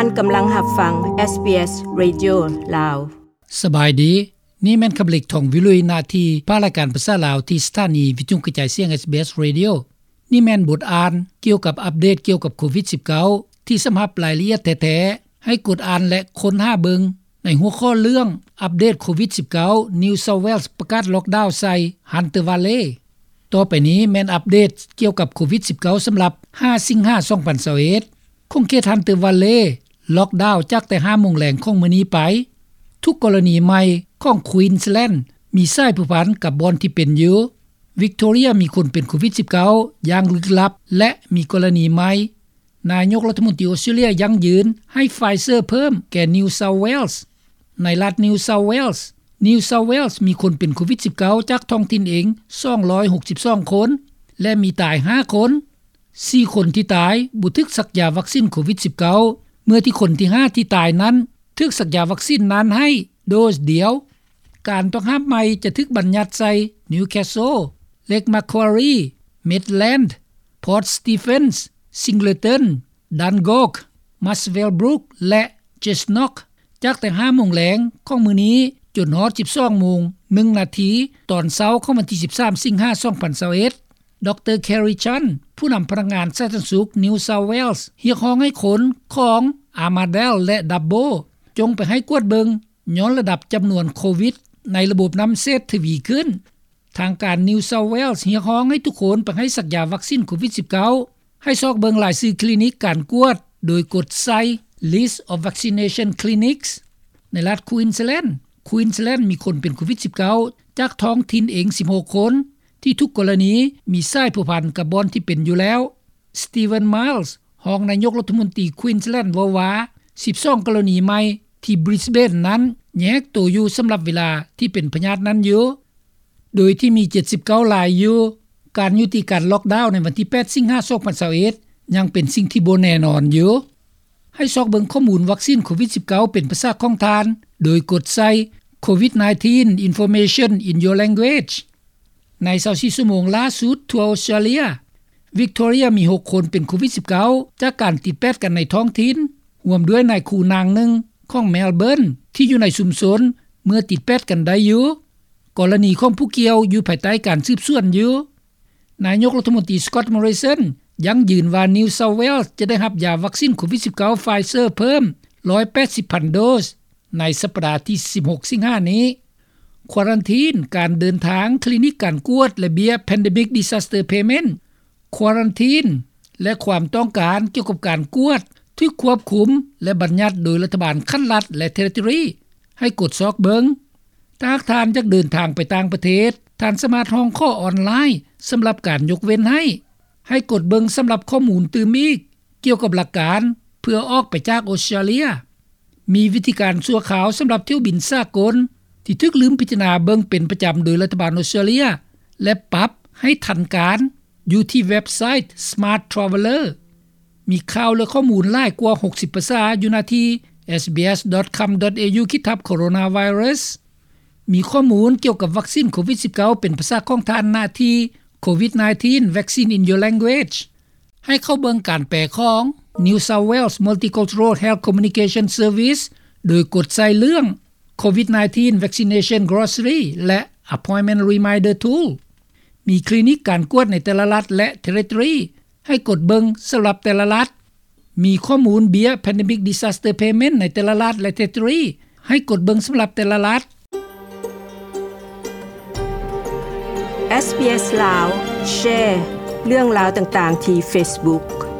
ທ່ານກຳລັງຮັບຟັງ ເອສບີເອສ Radio ລາວ. ສະບາຍດີ, ນີ້ແມ່ນຄຳເລັກ ທອງວິລຸຍ ໜ້າທີ່ພາກລາຍການພາສາລາວ ທີ່ສະຖານີວິທຍຸກະຈາຍສຽງ ເອສບີເອສ Radio. ນີ້ແມ່ນບົດອ່ານກ່ຽວກັບອັບເດດກ່ຽວກັບໂຄວິດສິບເກົ້າ ທີ່ສຳລັບລາຍລະອຽດແທ້ໆ ໃຫ້ກົດອ່ານ ແລະ ຄົ້ນຫາເບິ່ງໃນຫົວຂໍ້ເລື່ອງ ອັບເດດໂຄວິດສິບເກົ້າ New South Wales ປະກາດລັອກດາວໃສ່ Hunter Valley. ຕໍ່ໄປນີ້ແມ່ນອັບເດດກ່ຽວກັບໂຄວິດສິບເກົ້າ ສຳລັບ ຫ້າ ສິງຫາ ສອງພັນຊາວເອັດ ຂົງເຂດ Hunter Valley ລັອກດາວຈາກແຕ່ ຫ້າໂມງແລງຂອງມື້ນີ້ໄປ. ທຸກກໍລະນີໃໝ່ຂອງ Queensland ມີສາຍພົວພັນກັບບ່ອນທີ່ເປັນຢູ່. Victoria ມີຄົນເປັນໂຄວິດສິບເກົ້າ ຢ່າງລຶກລັບ ແລະ ມີກໍລະນີໃໝ່. ນາຍົກລັດຖະມົນຕີອົດສະຕຣາເລຍຢັ້ງຢືນໃຫ້ Pfizer ເພີ່ມແກ່ New South Wales. ໃນລັດ New South Wales, New South Wales ມີຄົນເປັນໂຄວິດສິບເກົ້າ ຈາກທ້ອງຖິ່ນເອງ ສອງຮ້ອຍຫົກສິບສອງຄົນ ແລະ ມີຕາຍຫ້າຄົນ. ສີ່ຄົນທີ່ຕາຍບໍ່ຖືກສັກຢາວັກຊິນໂຄວິດສິບເກົ້າ ເມື່ອທີ່ຄົນທີຫ້າທີ່ຕາຍນັ້ນ ຖືກສັກຢາວັກຊິນນັ້ນໃຫ້ໂດສດຽວ. ການຕ້ອງຫ້າມໃໝ່ຈະຖືກບັນຍັດໃສ່ Newcastle, Lake Macquarie, Maitland, Port Stephens, Singleton, Dungog, Muswellbrook ແລະ Cessnock ຈາກແຕ່ ຫ້າໂມງແລງຂອງມື້ນີ້ ຈົນຮອດ ສິບສອງໂມງ ໜຶ່ງນາທີ ຕອນເຊົ້າຂອງວັນທີ ສິບສາມ ສິງຫາ ສອງພັນຊາວເອັດ. ດຣ Kerry Chant ຜູ້ນຳພະນັກງານສາທາລະນະສຸກ New South Wales ຮຽກຮ້ອງໃຫ້ຄົນຂອງ Armidale ແລະ Dubbo ຈົ່ງໄປໃຫ້ກວດເບິ່ງ ຍ້ອນລະດັບຈຳນວນໂຄວິດໃນລະບົບນ້ຳເສດທະວີຂຶ້ນ. ທາງການ New South Wales ຮຽກຮ້ອງໃຫ້ທຸກຄົນໄປໃຫ້ສັກຢາວັກຊິນໂຄວິດສິບເກົ້າ. ໃຫ້ຊອກເບິ່ງລາຍຊື່ຄລີນິກການກວດ ໂດຍກົດໃສ່ List of Vaccination Clinics. ໃນລັດ Queensland, Queensland ມີຄົນເປັນໂຄວິດສິບເກົ້າ ຈາກທ້ອງຖິ່ນເອງ ສິບຫົກຄົນ ທີ່ທຸກກໍລະນີມີສາຍພົວພັນກັບບ່ອນທີ່ເປັນຢູ່ແລ້ວ. Stephen Miles ຮອງນາຍົກລັດຖະມົນຕີ Queensland ເວົ້າວ່າ ສິບສອງກໍລະນີໃໝ່ທີ່ Brisbane ນັ້ນແຍກໂຕຢູ່ສຳລັບເວລາທີ່ເປັນພະຍາດນັ້ນຢູ່ ໂດຍທີ່ມີ ເຈັດສິບເກົ້າລາຍຢູ່. ການຍຸຕິການລັອກດາວໃນວັນທີ ແປດ ສິງຫາ ສອງພັນຊາວເອັດ ຍັງເປັນສິ່ງທີ່ບໍ່ແນ່ນອນຢູ່. ໃຫ້ຊອກເບິ່ງຂໍ້ມູນວັກຊິນໂຄວິດສິບເກົ້າ ເປັນພາສາຂອງທ່ານ ໂດຍກົດໃສ່ COVID-nineteen Information in your language. ໃນ ຊາວສີ່ ຊົ່ວໂມງລ່າສຸດທົ່ວອົດສະຕຣາເລຍ, Victoria ມີຫົກຄົນເປັນໂຄວິດສິບເກົ້າ ຈາກການຕິດແປດກັນໃນທ້ອງຖິ່ນ, ຮ່ວມດ້ວຍນາຍຄູນາງໜຶ່ງຂອງ Melbourne ທີ່ຢູ່ໃນຊຸມຊົນເມື່ອຕິດແປດກັນໄດ້ຢູ່. ກໍລະນີຂອງຜູ້ກ່ຽວຢູ່ພາຍໃຕ້ການສືບສວນຢູ່. ນາຍົກລັດຖະມົນຕີ Scott Morrison ຢັ້ງຢືນວ່າ New South Wales ຈະໄດ້ຮັບຢາວັກຊິນໂຄວິດສິບເກົ້າ Pfizer ເພີ່ມ ໜຶ່ງຮ້ອຍແປດສິບພັນໂດສ ໃນສັບປະດາທີ ສິບຫົກ ສິງຫານີ້. Quarantine, ການເດີນທາງ, ຄລີນິກການກວດ ແລະ ເບ້ຍ Pandemic Disaster Payment. Quarantine ແລະ ຄວາມຕ້ອງການກ່ຽວກັບການກວດ ຖືກຄວບຄຸມ ແລະ ບັນຍັດໂດຍລັດຖະບານຂັ້ນລັດ ແລະ Territory. ໃຫ້ກົດຊອກເບິ່ງ. ຖ້າຫາກທ່ານຢາກເດີນທາງໄປຕ່າງປະເທດ, ທ່ານສາມາດຮ້ອງຂໍອອນລາຍສຳລັບການຍົກເວັ້ນໃຫ້. ໃຫ້ກົດເບິ່ງສຳລັບຂໍ້ມູນຕື່ມອີກກ່ຽວກັບຫຼັກການເພື່ອອອກໄປຈາກອົດສະຕຣາເລຍ. ມີວິທີການຊົ່ວຄາວສຳລັບຖ້ຽວບິນສາກົນທີ່ຖືກລືມພິຈາລະນາເບິ່ງເປັນປະຈຳໂດຍລັດຖະບານອົດສະຕຣາເລຍ ແລະ ປັບໃຫ້ທັນການ ຢູ່ທີ່ເວັບໄຊ Smart Traveller. ມີຂ່າວ ແລະ ຂໍ້ມູນຫຼາຍກວ່າ ຫົກສິບ ພາສາຢູ່ໜ້າທີ່ SBS dot com dot AU ຂີດທັບ Coronavirus. ມີຂໍ້ມູນກ່ຽວກັບວັກຊິນໂຄວິດສິບເກົ້າ ເປັນພາສາຂອງທ່ານ ໜ້າທີ່ COVID-nineteen Vaccine in Your Language. ໃຫ້ເຂົ້າເບິ່ງການແປຂອງ New South Wales Multicultural Health Communication Service ໂດຍກົດໃສ່ເລື່ອງ COVID-nineteen Vaccination Glossary ແລະ Appointment Reminder Tool. ມີຄລີນິກການກວດໃນແຕ່ລະລັດ ແລະ Territory ໃຫ້ກົດເບິ່ງສຳລັບແຕ່ລະລັດ. ມີຂໍ້ມູນເບ້ຍ Pandemic Disaster Payment ໃນແຕ່ລະລັດ ແລະ Territory ໃຫ້ກົດເບິ່ງສຳລັບແຕ່ລະລັດ. ເອສບີເອສ ລາວ ແຊເລື່ອງລາວຕ່າງໆທີ່ Facebook.